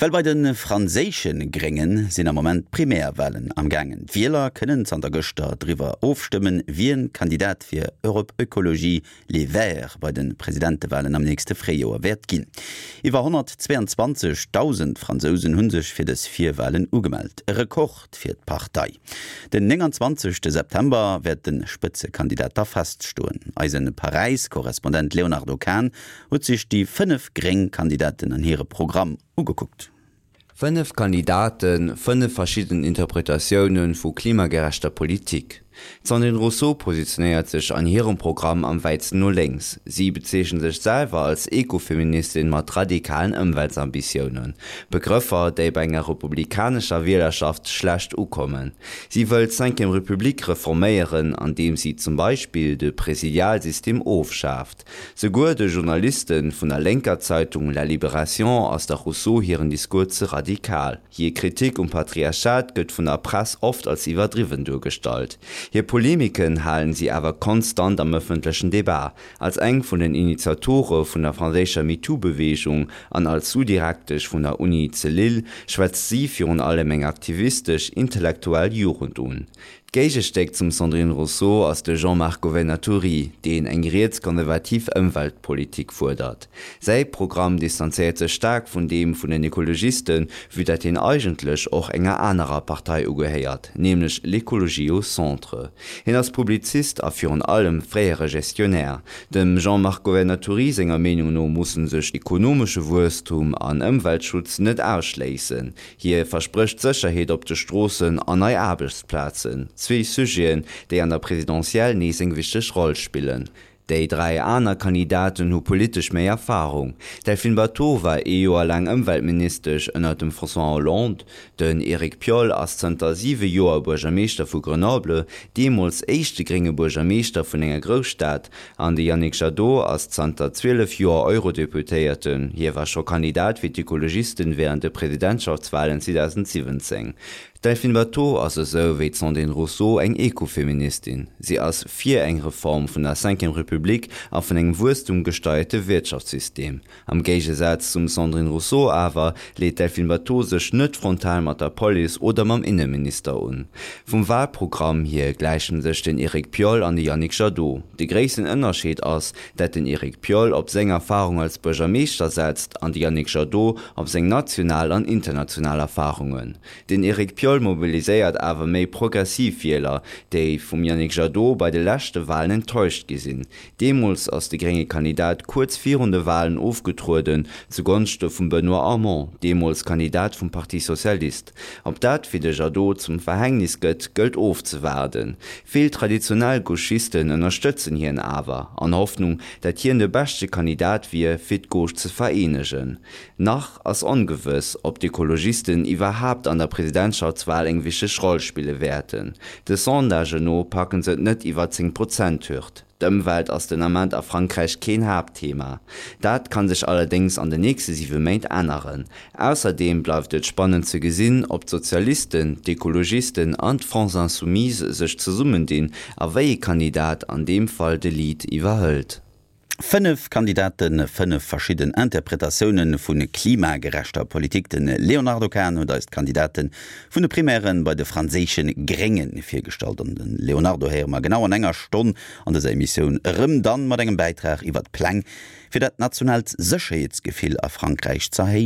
Well bei de franséische Grénge sinn am Moment d'Primärwalen am gaangen. D'Wieler kënnen zanter gëschter driwwer ofstëmmen, wien Kandidat fir Europe Ecologie Les Verts bei de Presidentewalen am nächste Fréijoer wäert ginn. Iwwer 122.000 Fransousen hu sech fir dës Virwalen ugemellt, e Rekord fir d'Partei. Den 29 September wäert de Spëtzekandidat da feststoen. Eise Paräis-Korrespondent Léonardo Kahn huet sech déi 5 gréng Kandidaten an hire Programm ugekuckt. 5 Kandidaten, 5 verschidden Interpretatioune vu klimagerechter Politik. D'Sandrine Rousseau positionéiert sech an hirem Programm am wäitsten no lénks. Si bezeechent sech selwer als Ekofeministin mat radikalen Ëmweltsambitiounen. Begrëffer, déi bei enger republikanescher Wielerschaft schlecht ukommen. Si wëll d'Cinquième République reforméieren, andeem si zum Beispill de Presidialsystem ofschaaft. Souguer de Journaliste vun der lénker Zeitung La Libération ass der Rousseau hiren Discours ze radikal. Hir Kritik um Patriarchat gëtt vun der Press oft als iwwerdriwwen duergestallt. Hir Polemiken halen si awer konstant am ëffentlechen Debat. Als eng vun den Initiatore vun der franséischer MeToo-Beweegung an als Sous-Direktesch vun der Uni ze Lille schwätzt si virun allem eng aktivistesch, intellektuell Jugend un. D'Géigestéck zum Sandrine Rousseau ass de Jean-Marc Governatori, deen eng rietskonservativ Ëmweltpolitik fuerdert. Säi Programm distanzéiert sech staark vun deem vun den Ekologisten, vue dat hien eigentlech och enger anerer Partei ugehéiert, nämlech L'Écologie au centre. Hien ass Publizist a virun allem fréiere Gestionnaire. Dem Jean-Marc Governatori senger Meenung no musse sech ekonomesche Wuesstum an Ëmweltschutz net ausschléissen. Hie versprécht Sécherheet op de Stroossen an nei Aarbechtsplazen, zwee Sujeten, déi an der Presidentielle nees eng wichteg Roll spillen. Déi 3 aner Kandidaten hu politesch méi Erfarung. D'Delphine Batho war ee Joer laang Ëmweltministesch ënner dem François Hollande. Den Eric Piolle ass zënter 7 Joer Buergermeeschter vu Grenoble, deemools éischte grénge Buergermeeschter vun enger Grousstad. An de Yannick Jadot ass zanter 12 Joer Eurodeputéierten. Hie war scho Kandidat fir d'Ekologisten wärend de Presidentschaftswalen 2017. D'Delphine Batho ass esou wéi d'Sandrine Rousseau eng Ekofeministin. Si ass fir eng Reform vun der Cinquième Republique a vun engem wuesstumgesteierte Wirtschaftssystem. Am Géigesaz zum Sandrine Rousseau awer leet d'Delphine Batho sech net frontal mat der Police oder mam Inneminister un. Vum Walprogramm hier gläichen sech den Eric Piolle an de Yannick Jadot. De gréissten Ënnerscheed ass, dat den Eric Piolle op seng Erfarung als Buergermeeschter setzt an de Yannick Jadot op seng national an international Erfarungen. Den Eric Piolle mobiliséiert awer méi progressiv Wieler, déi vum Yannick Jadot bei de leschte Walen enttäuscht gi sinn. Deemools ass de grénge Kandidat kuerz virun de Walen ofgetrueden, zu Gonschte vum Benoît Hamon, deemools Kandidat vum Parti Socialiste. Ob dat fir de Jadot zum Verhängnis gëtt, gëllt ofzewaarden. Vill traditionell Gauchisten ënnerstëtzen hien awer, an Hoffnung, dat hien de beschte Kandidat wier, fir d'Gauche ze vereenegen. Nach ass ongewëss, ob d'Ekologisten iwwerhaapt an der Presidentschaftswal eng wichteg Roll spille wäerten. De Sondagen no packen se et net iwwer d'Zéng-Prozent-Hürd. D'Ëmwelt ass den Ament a Frankräich keen Haaptthema. Dat kann sech allerdéngs an den nächste siwe Méint änneren. Ausserdeem bleift et spannend ze gesinn, ob d'Sozialisten, d'Ekologisten an d'France Insoumise sech zesummendinn a wéi ee Kandidat an deem Fall de Lead iwwerhëlt. 5 Kandidaten, 5 verschidden Interpretatioune vu klimagerechter Politik. De Léonardo Kahn huet eis d'Kandidate vun de Primären bei de franséische Grénge virgestallt. An de Léonardo héiere mer genau an enger Stonn an dëser Emissioun erëm, dann mat engem Bäitrag iwwer d'Pläng fir dat nationaalt Sécherheetsgefill a Frankräich z'erhéijen.